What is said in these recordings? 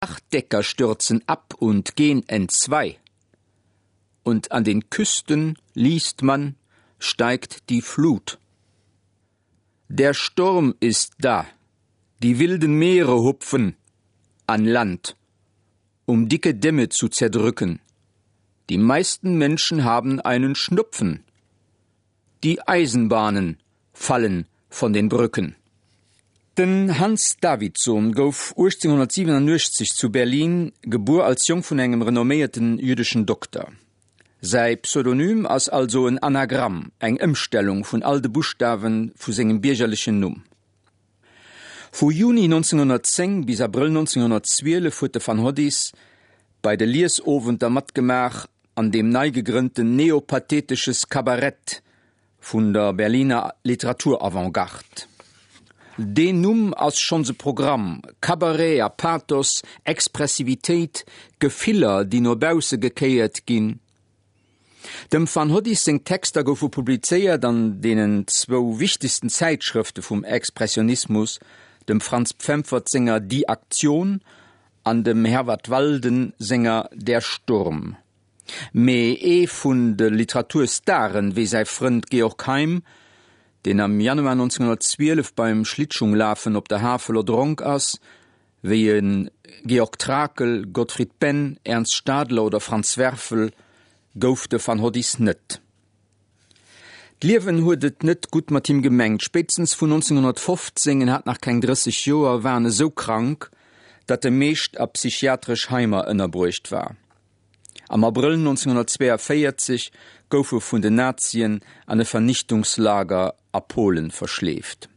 Dachdecker stürzen ab und gehen entzwei. Und an den Küsten, liest man, steigt die Flut. Der Sturm ist da, die wilden Meere hupfen an Land, um dicke Dämme zu zerdrücken. Die meisten Menschen haben einen Schnupfen. Die Eisenbahnen fallen von den Brücken. Den Hans Davidsohn gouf 1887 zu Berlin gebuer als Jong vun engem renomméierten jüddeschen Dokter. Säi Pseudonym ass also en Anagramm, eng Ëmstellung vun all de Buschtawe vu sengem biergerlechen Numm. Vu Juni 1910 bis Abrëll 1912 huet de Van Hoddis bei de Liesowenter matgemaach an dem nei gegrënnten Neopathetisches Kabarett vun der Berliner Literaturavantgarde. Deen Numm ass schonns e Programm, Cabaret a Pathos, Expressivitéit, Gefiller, déi no bausse gekéiert ginn. Dem Van Hoddis seng Texter goufe publizéiert an deenen zwou wichtegsten Zäitschrëfte vum Expressionismus, dem Franz Pfemfert senger Die Aktion an dem Herwart Walden senger Der Sturm. Mee ee vun de Literaturstaren, wéi säi Frënd Georg Heym, deen am Januar 1912 beim Schlittschunglafen op der Havel erdronk ass, wéi e Georg Trakl, Gottfried Benn, Ernst Stadler oder Franz Werfel, gouf de Van Hoddis net. D'Liewen huet et net gutt mat him gemengt. Spéitstens vun 1915, en hat nach keng 30 Joer, war en esou krank, datt e meescht a psychiatresch Heimer ënnerbruecht war. Am Abrëll 1942 gouf e vun den Nazien an e Vernichtungslager a Polen verschleeft.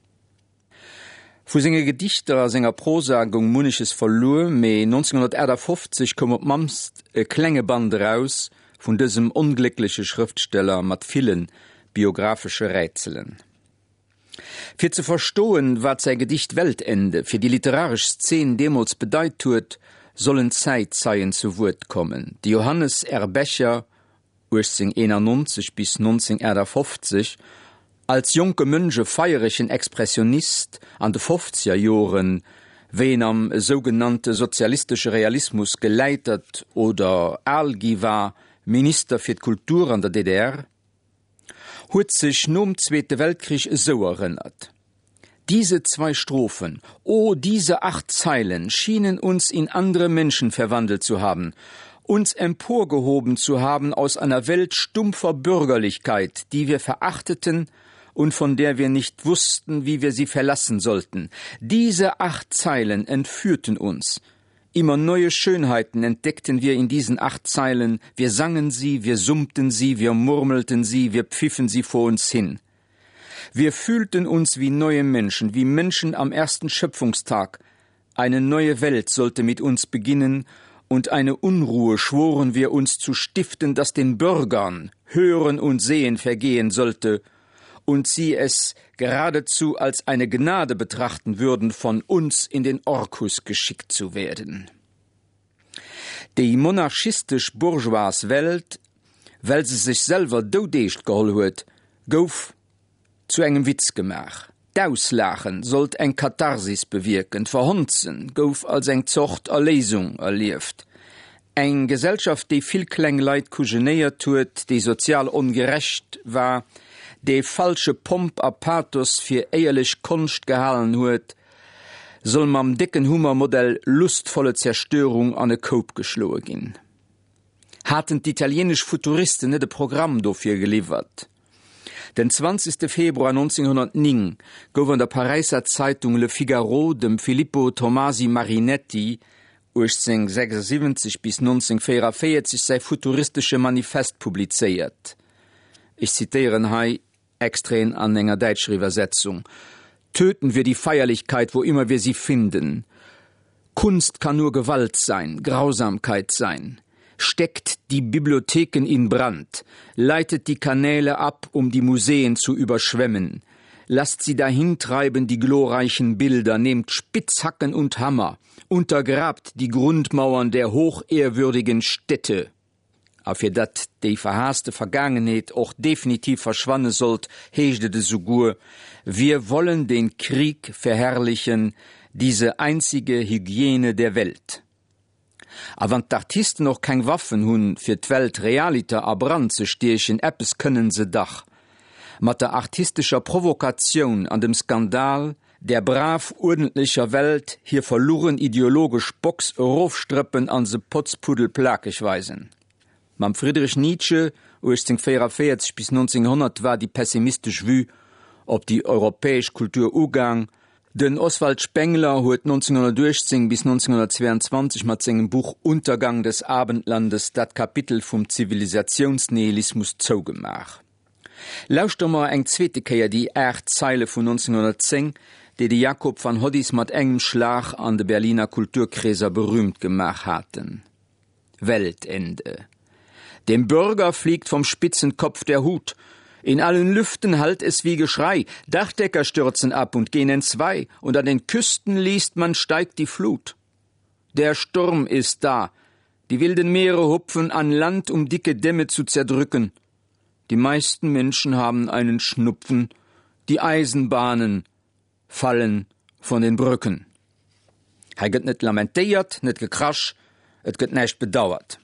Vu senge Gedichter a senger Prosa goung munneches verluer, mee 1958 koum op d'mannst e klenge Band eraus vun dësem ongléckleche Schrëftsteller mat ville biographesche Rätselen. Fir ze verstoen, wat säi Gedicht Weltende fir déi literaresch Szen deemools bedeit huet, sollen Zäitzeien zu Wuert kommen, de Johannes R. Becher 1891 bis 1958, als jonke Mönch e feieregen Expressionist an de Fofzegerjoren, wéi en am sougenannte sozialistesche Realismus geläitert oder al gi war, Minister fir d'Kultur an der DDR, huet sech nom Zweete Weltkrich esou erënnert, Diese zwei Strophen, oh, diese acht Zeilen schienen uns in andere Menschen verwandelt zu haben, uns emporgehoben zu haben aus einer Welt stumpfer Bürgerlichkeit, die wir verachteten und von der wir nicht wussten, wie wir sie verlassen sollten. Diese acht Zeilen entführten uns. Immer neue Schönheiten entdeckten wir in diesen acht Zeilen, wir sangen sie, wir summten sie, wir murmelten sie, wir pfiffen sie vor uns hin. Wir fühlten uns wie neue Menschen, wie Menschen am ersten Schöpfungstag. Eine neue Welt sollte mit uns beginnen, und eine Unruhe schworen wir uns zu stiften, dass den Bürgern Hören und Sehen vergehen sollte und sie es geradezu als eine Gnade betrachten würden, von uns in den Orkus geschickt zu werden. Déi monarchistesch bourgeoise Welt, well se sech selwer doudeescht geholl huet, gouf zu engem Witz gemaach. D'Auslaachen sollt eng Katharsis bewierken, d'Verhonzen gouf als eng Zort Erléisung erlieft. Eng Gesellschaft, déi vill kleng Leit kujenéiert huet, déi sozial ongerecht war, déi falsche Pomp a Pathos fir éierlech Konscht gehalen huet, soll mam décken Hummer Modell Lustvolle Zerstörung an e Koup geschloe ginn. Haten d'italieenesch Futuristen net e Programm dofir geliwwert? Den 20. Februar 1909 gouf an der Paräisser Zeitung Le Figaro dem Filippo Tomasi Marinetti, 1876 bis 1944, säi futuristesche Manifest publizéiert. Ech zitéieren hei Extraiten an enger däitscher Iwwersetzung, Töten wir die Feierlichkeit, wo immer wir sie finden. Kunst kann nur Gewalt sein, Grausamkeit sein. Steckt die Bibliotheken in Brand, leitet die Kanäle ab, um die Museen zu überschwemmen. Lasst sie dahintreiben die glorreichen Bilder, nehmt Spitzhacken und Hammer, untergrabt die Grundmauern der hochehrwürdigen Städte. A fir datt déi verhaasste Vergaangenheet och definitiv verschwanne sollt, heescht et esouguer, Wir wollen den Krieg verherrlichen, diese einzige Hygiene der Welt. A wann d'Artisten och keng Waffen hunn, fir d'Welt realiter a Brand ze stiechen, eppes kënnen se dach, Mat der artistescher Provokatioun an dem Skandal där brav uerdentlecher Welt hir verlugen ideologesch Box erofstrëppen an se potzpuddelplakeg weisen. Mam Friedrich Nietzsche, 1844 bis 1900, war déi pessimistesch Vue op déi europäesch Kultur ugaang. Den Oswald Spengler huet 1918 bis 1922 mat sengem Buch Untergang des Abendlandes dat Kapitel vum Zivilisatiounsnihilismus zougemaach. Lauschtere mer eng zweete Kéier déi 8 Zeile vun 1910, déi de Jakob van Hoddis mat engem Schlag an de Berliner Kulturkreeser berühmt gemaach haten. Weltende. Dem Bürger fliegt vom spitzen Kopf der Hut. In allen Lüften hallt es wie Geschrei, Dachdecker stürzen ab und gehen entzwei, und an den Küsten liest man steigt die Flut. Der Sturm ist da. Die wilden Meere hupfen an Land, um dicke Dämme zu zerdrücken. Die meisten Menschen haben einen Schnupfen, die Eisenbahnen fallen von den Brücken. Hei gëtt net lamentéiert, net gekrasch, et gëtt näischt bedauert.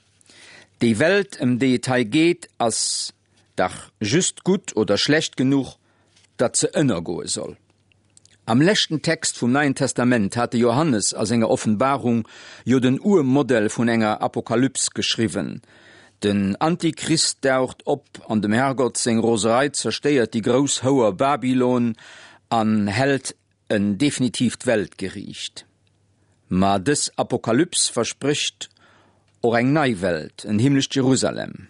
Déi Welt, ëm déi et hei geet, ass dach just gutt oder schlecht genuch, datt se ënnergoe soll. Am leschten Text vum Neien Testament hat de Johannes a senger Offenbarung jo den Urmodell vun enger Apokalyps geschriwwen. Den Antichrist daucht op an dem Herrgott seng Roserei zerstéiert déi grouss Houer Babylon an hält en definitiivt Weltgeriicht. Ma dës Apokalyps versprécht och eng nei Welt, en himmlescht Jerusalem.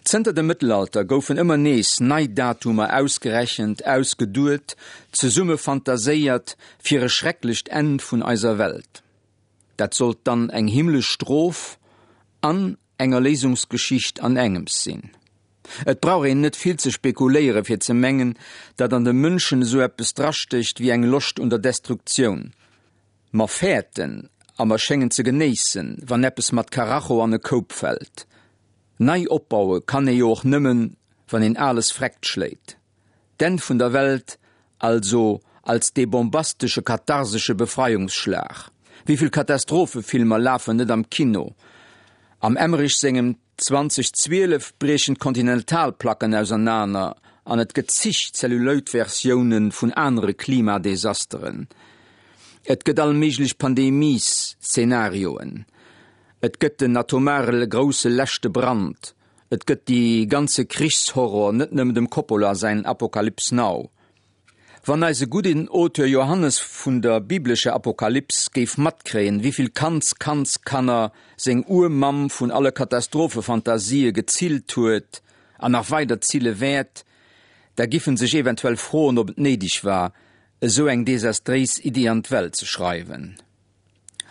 Zënter dem Mëttelalter goufen ëmmer nees nei Datumer ausgerechent, ausgeduet, zesumme fantaséiert fir e schrecklecht Enn vun eiser Welt. Dat sollt dann eng himmlesch Strof an eng Erléisungsgeschicht an engems sinn. Et brauch een net vill ze spekuléiere fir ze mengen, datt an de Mënschen esou eppes drastécht wéi eng Loscht un der Destruktioun. Mer fäerten a mer schéngen ze genéissen, wann eppes mat Karacho an e Koup fält. Nei opbaue kann ee jo och nëmmen, wann een Ales vreckt schléit. D'Enn vun der Welt also als dee bombastesche katharsesche Befreiungsschlag. Wéivill Katastrophefilmer lafen net am Kino? Am Emmerich sengem 2012 briechen d'Kontinentalplacken ausernaner an et gëtt zig Zelluloid-Versioune vun anere Klimadesasteren. Et gëtt all méiglech Pandemies-Szenarioen. Et gëtt den atomare grousse leschte Brand. Et gëtt dee ganze Krichshorror, net nëmmen dem Coppola säin Apocalypse Now. Wann eise gudden Auteur Johannes vun der biblescher Apokalyps géif matkréien, wéivill Kandskandskanner seng Urmamm vun alle Katastrophefantasië gezillt huet an nach weider zille wäert, da giff en sech eventuell froen, ob et néideg war, esou eng desastréis Iddi an d'Welt ze schreiwen.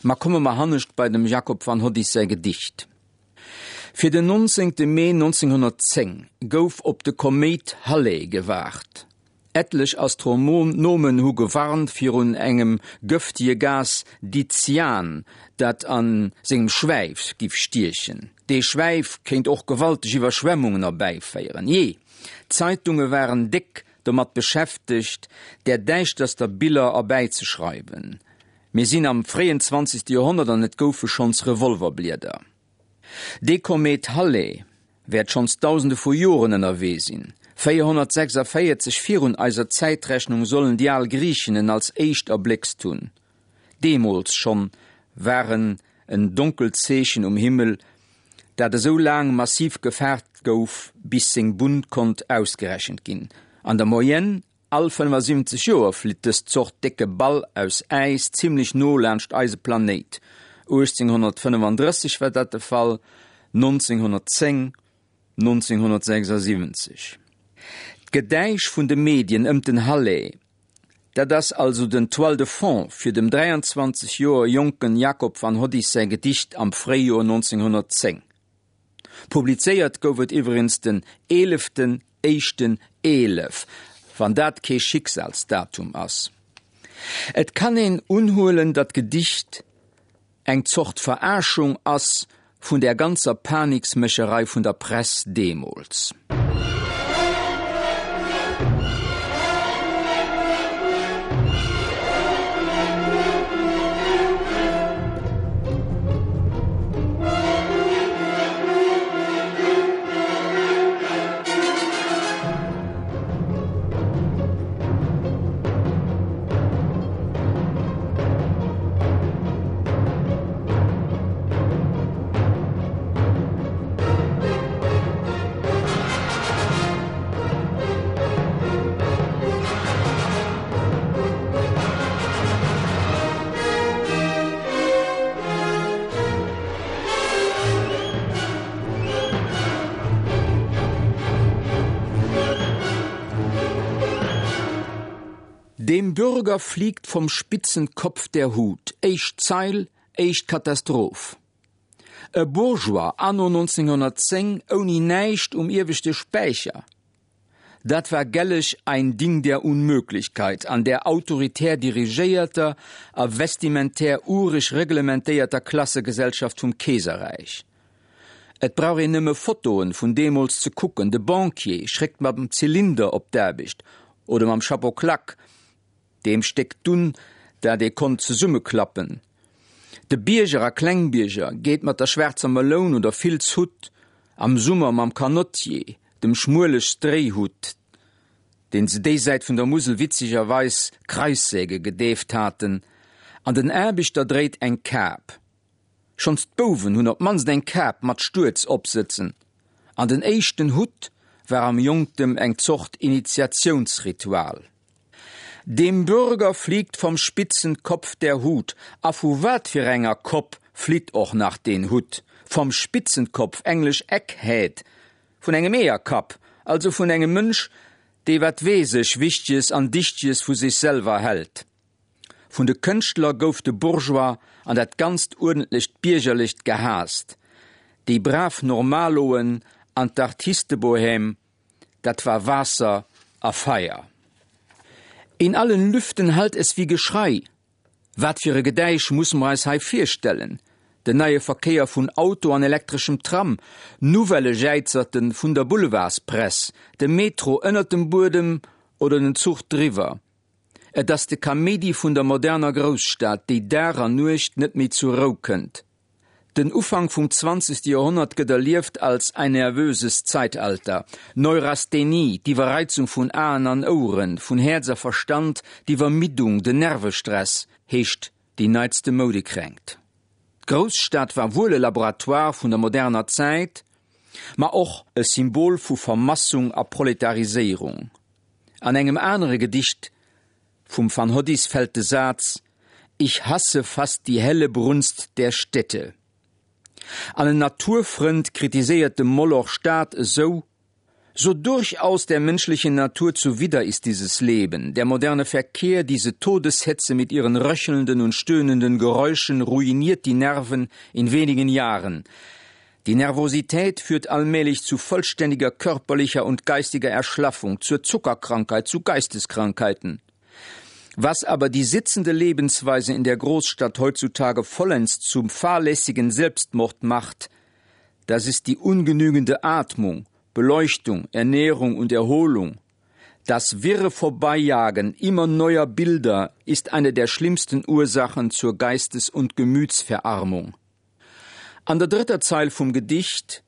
Ma komme mer hannescht bei dem Jakob van Hoddis säi Gedicht. Fir den 19. Mee 1910 gouf op de Koméit Halley gewaart. Ettlech Astronomen hu gewarnt virun engem gëftege Gas Dicyan, dat a sengem Schwäif giff stiechen. Dee Schwäif kéint och gewalteg Iwwerschwemmungen erbäiféieren. Jee, d'Zeitunge waren déck domat beschäftegt, där däischterster Biller erbäizeschreiwen. Mir sinn am fréien zwanzegste Joerhonnert an et goufe schonns Revolverblieder. Dee Komet Halley wäert schonns dausende vu Joren ënnerwee sinn. 446 virun eiser Zäitrechnung sollen déi al Griichen en als éischt erbléckst hunn. Deemools schonn war en en donkelt Zeechen um Himmel, dat esou laang massiv gefaart gouf, bis seng Bunn konnt ausgerechent ginn. An der Moyenne All 75 Joer flitt dës Zort décke Ball aus Äis zimmlech no laanscht eise Planéit. 1835 war dat de Fall, 1910, 1976. D'Gedäisch vun de Medien ëmt den Halley, dat ass also den Toile de fond fir dem 23 Joer jonken Jacob van Hoddis säi Gedicht am Fréijoer 1910. Publizéiert gouf et iwwregens den eeleften éischten 11, wann dat kee Schicksalsdatum ass. Et kann een unhuelen, datt d'Gedicht eng Zort Verarschung ass vun där ganzer Paniksmécherei vun der Press deemools. Dem Bürger fliegt vom spitzen Kopf der Hut. Éischt Zeil, éischt Katastroph. E Bourgeois anno 1910 ouni näischt um ieweschte Späicher, dat war gelleg ein Ding der Unmöglichkeit an där autoritär dirigéierter a vestimentär ureg reglementéierter Klassegesellschaft vum Keeserräich. Et brauch een nëmme Fotoen vun deemools ze kucken, de Banquier schréckt mam Zylinder op d'Aarbecht oder mam Chapeau claque, deem Stéck Dunn, dat ee konnt zesummeklappen. De Bierger a Klengbierger geet mat der schwaarzer Meloun oder Filzhutt, am Summer mam Canotier, dem schmuele Stréihutt, deen se déi Säit vun der Musel witzegerweis Kreissäge gedeeft haten, an den Aarbechter dréit eng Kap. Schonns d'Bouwen hunn op d'mannst eng Kap mat Stuerz opsëtzen, an den éischten Hutt war am Jonktem eng Zort Initiatiounsritual. Dem Bürger fliegt vom spitzen Kopf der Hut. A vu wat fir enger Kopp flitt och nach deen Hutt? Vom spitzen Kopf, englesch Egghead, vun engem Eeërkapp, also vun engem Mënsch, dee wat weess ech Wichteges an Dichteges vu sech selwer hält. Vun de Kënschtler gouf de Bourgeois an dat ganzt uerdentlecht Biergerlecht gehaasst, déi brav Normaloen an d'Artistebohème, dat war Waasser a Feier. In allen Lüften hallt es wie Geschrei. Wat fir e Gedäisch musse mer eis hei virstellen? Den neie Verkéier vun Auto an elektreschem Tram, Nouvellë Jäizerte vun der Boulevardspress, de Metro ënnert dem Buedem oder den Zuch driwwer. Et ass de Kaméidi vun der moderner Grousstad, déi Dag an Nuecht net méi zur Rou kënnt. Den Ufank vum zwanzegste Joerhonnert gëtt erlieft als ein nervöses Zeitalter. Neurasthenie, d'Iwwerreizung vun Aen an Oueren, vun Häerz a Verstand, d'Iwwermiddung, den Nervestress, heescht déi neitste Moudekränkt. D'Grousstad war wuel e Laboratoire vun der moderner Zäit, ma och e Symbol vu Vermassung a Proletariséierung. An engem anere Gedicht vum Van Hoddis fält de Saz, Ich hasse fast die helle Brunst der Städte. An en Naturfrënd kritiséiert dem Moloch Stad esou, So durchaus der menschlichen Natur zuwider ist dieses Leben, der moderne Verkehr, diese Todeshetze mit ihren röchelnden und stöhnenden Geräuschen ruiniert die Nerven in wenigen Jahren. Die Nervosität führt allmählich zu vollständiger körperlicher und geistiger Erschlaffung, zur Zuckerkrankheit, zu Geisteskrankheiten. Was aber die sitzende Lebensweise in der Großstadt heutzutage vollends zum fahrlässigen Selbstmord macht, das ist die ungenügende Atmung, Beleuchtung, Ernährung und Erholung. Das wirre Vorbeijagen immer neuer Bilder ist eine der schlimmsten Ursachen zur Geistes- und Gemütsverarmung. An der drëtter Zeil vum Gedicht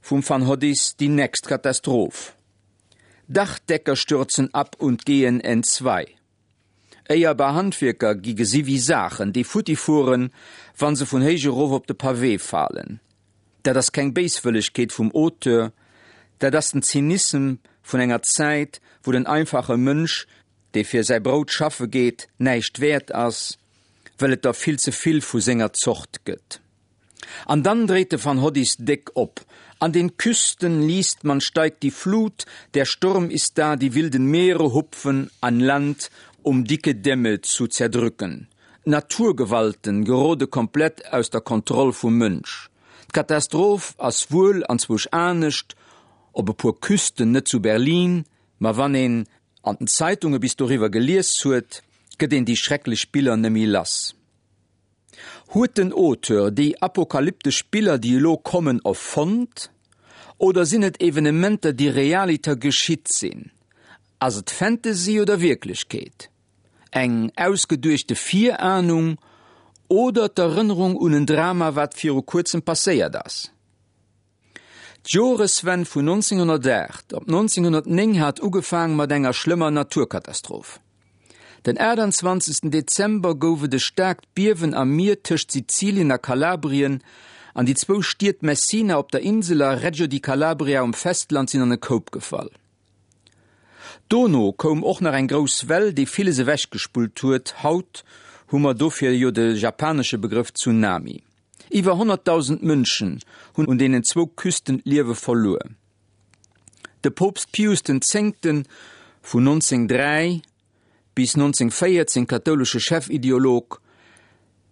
vum Van Hoddis déi nächst Katastroph, Dachdecker stürzen ab und gehen entzwei. Éierbar Handwierker gi gesi wéi Saachen, déi futti fueren, wa se vun héich erof op de Pavé falen. Dat ass keng Béiswëllegkeet vum Auteur, dat ass den Zynissem vun enger Zäit, wou den einfache Mënsch, dee fir säi Brout schaffe geet, näischt wäert ass, well et der vill ze vill vu senger Zort gëtt. An dann dréit de Van Hoddis déck op, An den Küsten liest man steigt die Flut, der Sturm ist da, die wilden Meere hupfen an Land, um dicke Dämme zu zerdrücken. D'Naturgewalten gerode komplett aus der Kontroll vum Mënsch. D'Katastroph ass wuel anzwousch anescht op e puer Küsten, net zu Berlin, ma wann een an den Zeitunge bis doriwwer gelies huet, gëtt een déi schrecklech Biller nëmmi lass. Huet den Auteur déi apokalyptesch Biller, déi elo kommen, erfonnt oder sinn et Evenementer, déi realiter geschitt sinn? Ass et Fantasy oder Wierklechkeet? Eng ausgeduechte Virahnung oder d'Erënnerung un en Drama, wat viru kuerzem passéiert ass? D'Joreswenn vun 1908 op 1909 hat ugefaang mat enger schlëmmer Naturkatastroph. Den 28. Dezember gouf et e staarkt Biewen am Mier tëscht Sizilien a Kalabrien an déi zwou Stied Messina op der Insel a Reggio di Calabria um Festland sinn an e Koup gefall. Dono koum och nach eng grouss Well, déi villes ewechgespullt huet, haut hu mer dofir jo de japanesche Begrëff Tsunami. Iwwer 100.000 Mënschen hunn un deenen zwou Küsten d'Liewe verluer. De Poopst Pius den Zéngten vun 1903, bis 1914 kathoulesche Chefideolog,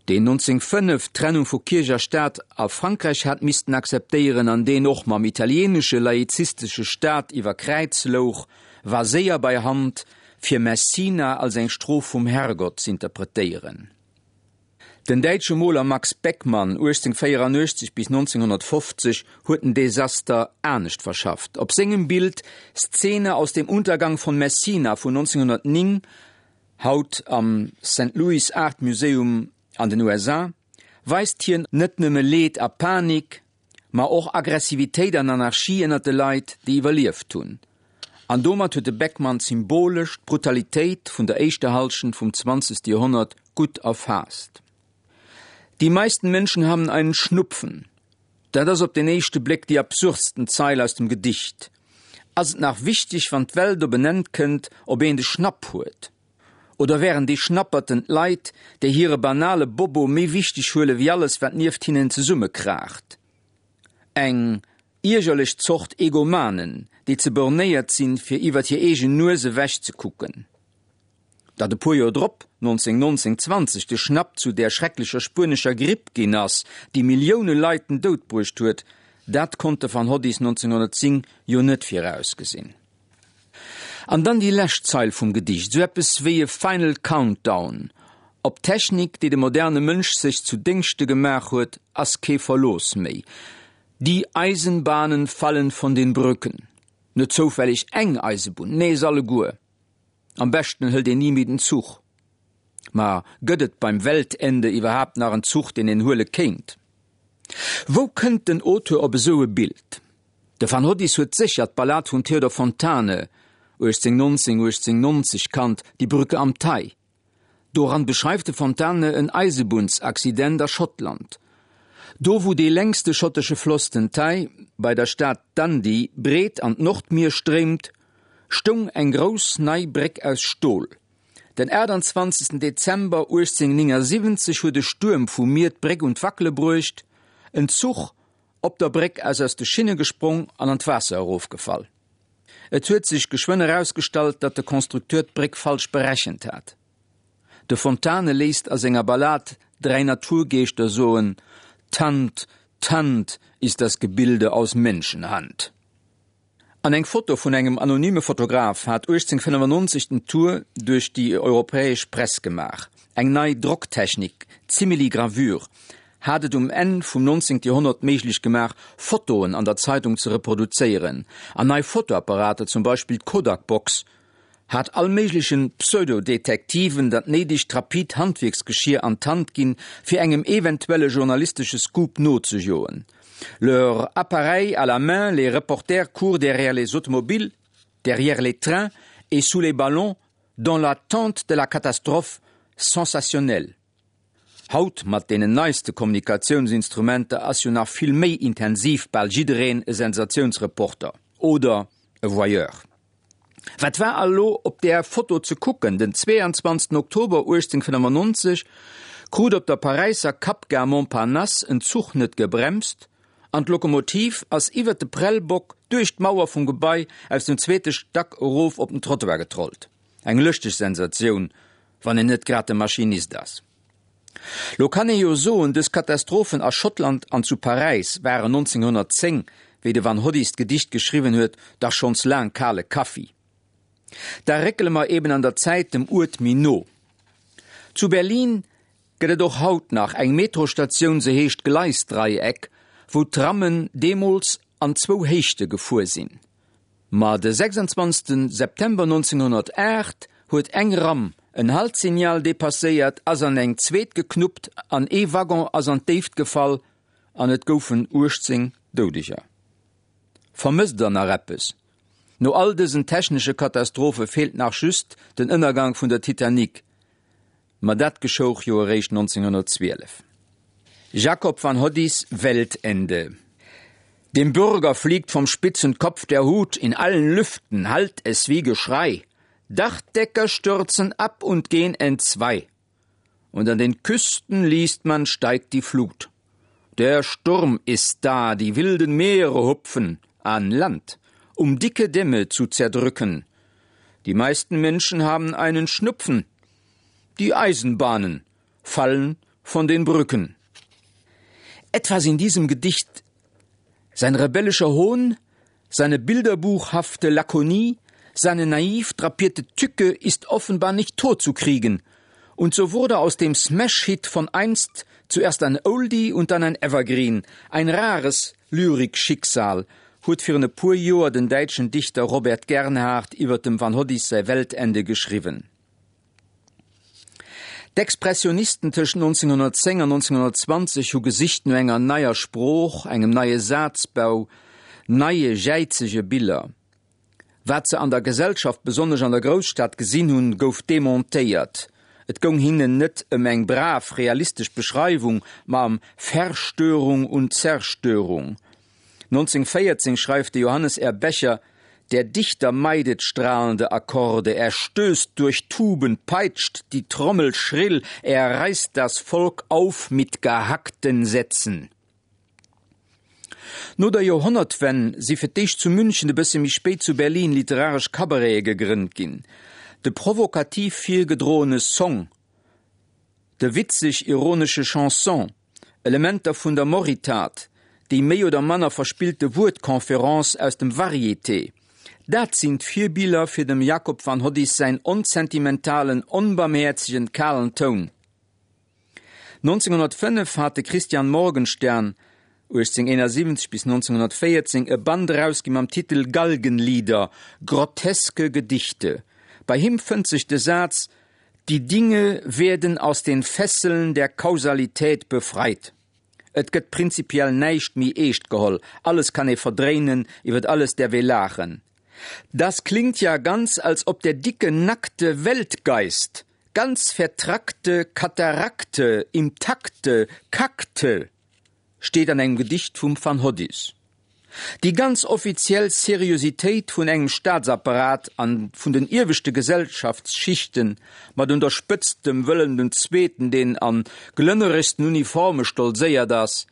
deen 1905 d'Trennung vu Kierch a Staat a Frankräich hat missten akzeptéieren an deen och mam italieenesche laizistesche Staat iwwer Kräiz louch, war séier bei Hand, fir Messina als eng Strof vum Herrgott z'interpretéieren. Den däitsche Moler Max Beckmann, 1884 bis 1950, huet den Desaster anescht verschafft. Op sengem Bild Szene aus dem Untergang von Messina vun 1909, haut am Saint Louis Art Museum an den USA, weist hien net nëmme Leed a Panik, ma och Aggressivitéit an Anarchie ënnert de Leit, déi iwwerlieft hunn. An domat huet de Beckmann symbolesch d'Brutalitéit vun der éischter Hallschent vum zwanzegste Joerhonnert gutt erfaasst. Die meisten Menschen haben einen Schnupfen. Dat ass op den éischte Bléck déi absurdsten Zeil aus dem Gedicht. Ass et nach wichteg, wann d'Welt op en Enn kënnt, ob een de Schnapp huet? Oder wären déi Schnapperten d'Leit, déi hire banale Bobo méi wichteg huele wéi alles, wat nieft hinnen zesummekraacht? Eng iergerlech Zort Egomanen, déi ze bornéiert sinn, fir iwwert hir eegen Nues ewech ze kucken. Datt e puer Joer drop, 1919, 20, de Schnapp zu där schrecklecher spuenescher Gripp ginn ass, déi Millioune Leit den Doud bruecht huet, dat konnt de Van Hoddis 1910 jo net virausgesinn. An dann déi lescht Zeil vum Gedicht, esou eppes wéi e Final Countdown. Op d'Technik, déi de moderne Mënsch sech zu Déngschte gemaach huet, ass kee Verlooss méi. Die Eisenbahnen fallen von den Brücken. Net zoufälleg eng Eisebunn, nee, se alleguer. Am beschten hëlt een ni méi den Zuch. Ma gëtt et beim Weltende iwwerhaapt nach en Zuch, deen een huele kéint? Wou kënnt den Auteur op esou e Bild? De Van Hoddis huet sécher d'Ballad vum Theodor Fontane, 1819, 1890, kannt, Die Brücke am Tay. Doran beschreift de Fontane en Eisebunnsaccident a Schottland. Do wou dee längste schottesche Floss, den Tay, bei der Stad Dundee breet an d'Nordmier stréimt, stoung eng grouss nei Bréck aus Stol. Den 28 Dezember 1879 huet e Stuerm vum Mier d'Bréck un d'Wackele bruecht, en Zuch Op der Bréck ass aus de Schinne gesprong an an d'Waasser erofgefall. Et huet sech geschwënn erausgestallt, datt de Constructeur d'Bréck falsch berechent hat. De Fontane léisst a senger Ballad 3 Naturgeeschter soen, Tant, Tant ist das Gebilde aus Menschenhand. An eng Foto vun engem anonyme Fotograf hat 1895 den Tour duerch déi europäesch Press gemaach. Eng nei Drocktechnik, d'Simili-Gravure, hat et um Enn vum 19. Joerhonnert méiglech gemaach, Fotoen an der Zeitung ze reproduzéieren. An nei Fotoapparater, zum Beispill d'Kodak-Box, hat all méiglechen Pseudo-Detektiven dat néidegt rapid Handwierksgeschier an d'Hand ginn, fir engem eventuelle journalistesche Scoop nozejoen. Leur appareil à la main, les reporters courent derrière les automobiles, derrière les trains et sous les ballons dans l'attente de la catastrophe sensationnelle. Haut, mat deenen neiste Kommunikatiounsinstrumenter, ass jo nach vill méi intensiv bal jiddereen e Sensatiounsreporter oder e Voyeur. Wat war elo op där Foto ze kucken? Den 22 Oktober 1895 krut op der Paräisser Kappgare Montparnasse en Zuch net gebremst an d'Lokomotiv ass iwwert de Prellbock duerch d'Mauer vum Gebai aus dem zweete Stack erof op den Trottoir getrollt. Eng lëschteg Sensatioun, wann een net grad de Maschinist ass. Lo kann ee jo soen, dës Katastrophen a Schottland an zu Paräis waren 1910, wéi de Van Hoddis d'Gedicht geschriwwen huet, dach schonns laang kale Kaffi. Da réckele mer eben an der Zäit dem Uert méi no. Zu Berlin gëtt et och haut nach eng Metrostatioun, se heescht Gleisdreieck, wou d'Trammen deemools an zwou Héichte gefuer sinn. Ma de 26 September 1908 huet eng Ramm en Haltsignal depasséiert, ass an eng zweet geknuppt an ee Waggon ass an d'Déift gefall an et goufen 18 Doudeger. Vermësst der nach eppes? No all dësen technesche Katastrophe feelt nach just den Ënnergang vun der Titanic. Ma dat geschouch jo eréischt 1912. Jacob van Hoddis Weltende. Dem Bürger fliegt vom spitzen Kopf der Hut, in allen Lüften hallt es wie Geschrei. Dachdecker stürzen ab und gehn entzwei. Und an den Küsten liest man steigt die Flut. Der Sturm ist da, die wilden Meere hupfen an Land, um dicke Dämme zu zerdrücken. Die meisten Menschen haben einen Schnupfen. Die Eisenbahnen fallen von den Brücken. Etwas in diesem Gedicht, sein rebellischer Hohn, seine bilderbuchhafte Lakonie, seine naiv drapierte Tücke ist offenbar nicht totzukriegen. Und so wurde aus dem Smash-Hit von einst zuerst ein Oldie und dann ein Evergreen, ein rares Lyrikschicksal, huet virun e puer Joer den däitschen Dichter Robert Gernhardt iwwer dem Van Hoddis säi Weltende geschriwwen. D'Expressionisten tëscht 1910 an 1920 hu gesicht no enger neier Sprooch, engem neie Sazbau, neie jäizege Biller. Wat se an der Gesellschaft, besonnesch an der Grousstad gesinn hunn, gouf demontéiert. Et goung hinnen net ëm eng brav realistesch Beschreiwung, ma ëm Verstörung und Zerstörung. 1914 schreift de Johannes R. Becher, Der Dichter meidet strahlende Akkorde, er stößt durch Tuben, peitscht die Trommel schrill, er reißt das Volk auf mit gehackten Sätzen. No der Joerhonnertwenn si fir d'éischt zu München, e bësse méi spéit zu Berlin literaresch Cabarete gegrënnt ginn. De provokativ virgedroene Song, de witzeg-ironesche Chanson, Elementer vun der Moritat, déi méi oder manner verspillte Wuertconférence aus dem Varieté, dat sinn d'Virbiller fir dem Jakob van Hoddis säin onsentimentalen, onbarmhäerzegen, kalen Toun. 1905 hat de Christian Morgenstern, 1871 bis 1914, e Band erausgi mam Titel Galgenlieder, groteske Gedichte. Bei him fënnt sech de Saz, Die Dinge werden aus den Fesseln der Kausalität befreit. Et gëtt prinzipiell näischt méi eescht geholl, alles kann ee verdréinen, iwwert alles däerf ee laachen. Das klingt ja ganz, als ob der dicke, nackte Weltgeist ganz vertrackte Katarakte im Takte kackte, steet an engem Gedicht vum Van Hoddis. Déi ganz offiziell Seriositéit vun engem Staatsapparat an vun den ieweschte Gesellschaftsschichten, mat un der Spëtzt dem Wëllem den Zweeten, deen an glënneregsten Uniforme stolzéiert ass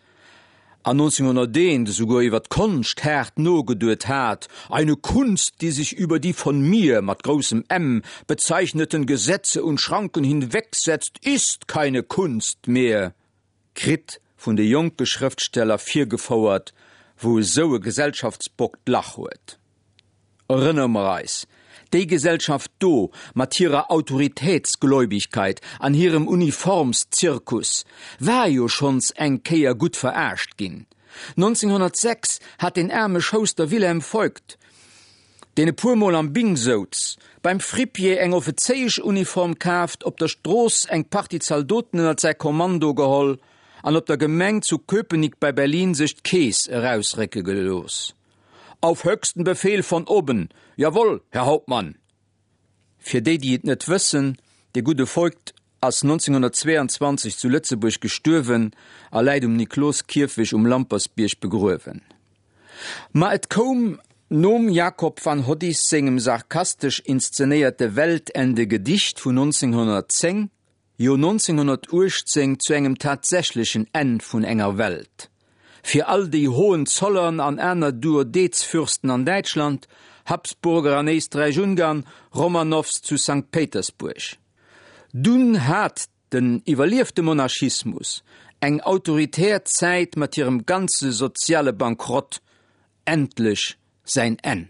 an 1901 esouguer iwwer d'Konscht haart nogeduet hat, Eine Kunst, die sich über die von mir, mat groussem M, bezeichneten Gesetze und Schranken hinwegsetzt, ist keine Kunst mehr. Kritt vun de jonke Schrëftsteller virgefouert, wou esou e Gesellschaftsbock d'Lach huet. Erënnere mer eis, déi Gesellschaft do, mat hirer Autoritätsgläubigkeit an hirem Uniformszirkus, war jo schonns eng Kéier gutt verarscht ginn. 1906 hat deen aarme Schouster Wilhelm Voigt, deen e puer Mol am Bing souz, beim Fripier eng Offezéieschuniform kaaft, op der Strooss eng Partie Zaldoten ënnert säi Kommando geholl an op der Gemeng zu Köpenick bei Berlin sech d'Keess erausrécke gelooss. Auf höchsten Befehl von oben, jawohl, Herr Hauptmann! Fir déi, déi et net wëssen, de gudde Voigt ass 1922 zu Lëtzebuerg gestuerwen a läit um Nikloskierfech um Lampersbierg begruewen. Ma et koum nom Jakob van Hoddis sengem sarkastesch inszenéierte Weltende-Gedicht vun 1910, jo 1918 zu engem tatsächlechen Enn vun enger Welt. Fir all déi Hohenzollern an aner Duodezfürsten an Däitschland, Habsburger an Éisträich-Ungarn, Romanows zu Sankt Péitersbuerg. Dunn hat den iwwerliefte Monarchismus, eng autoritär Zäit mat hirem ganze soziale Bankrott, endlech säin Enn.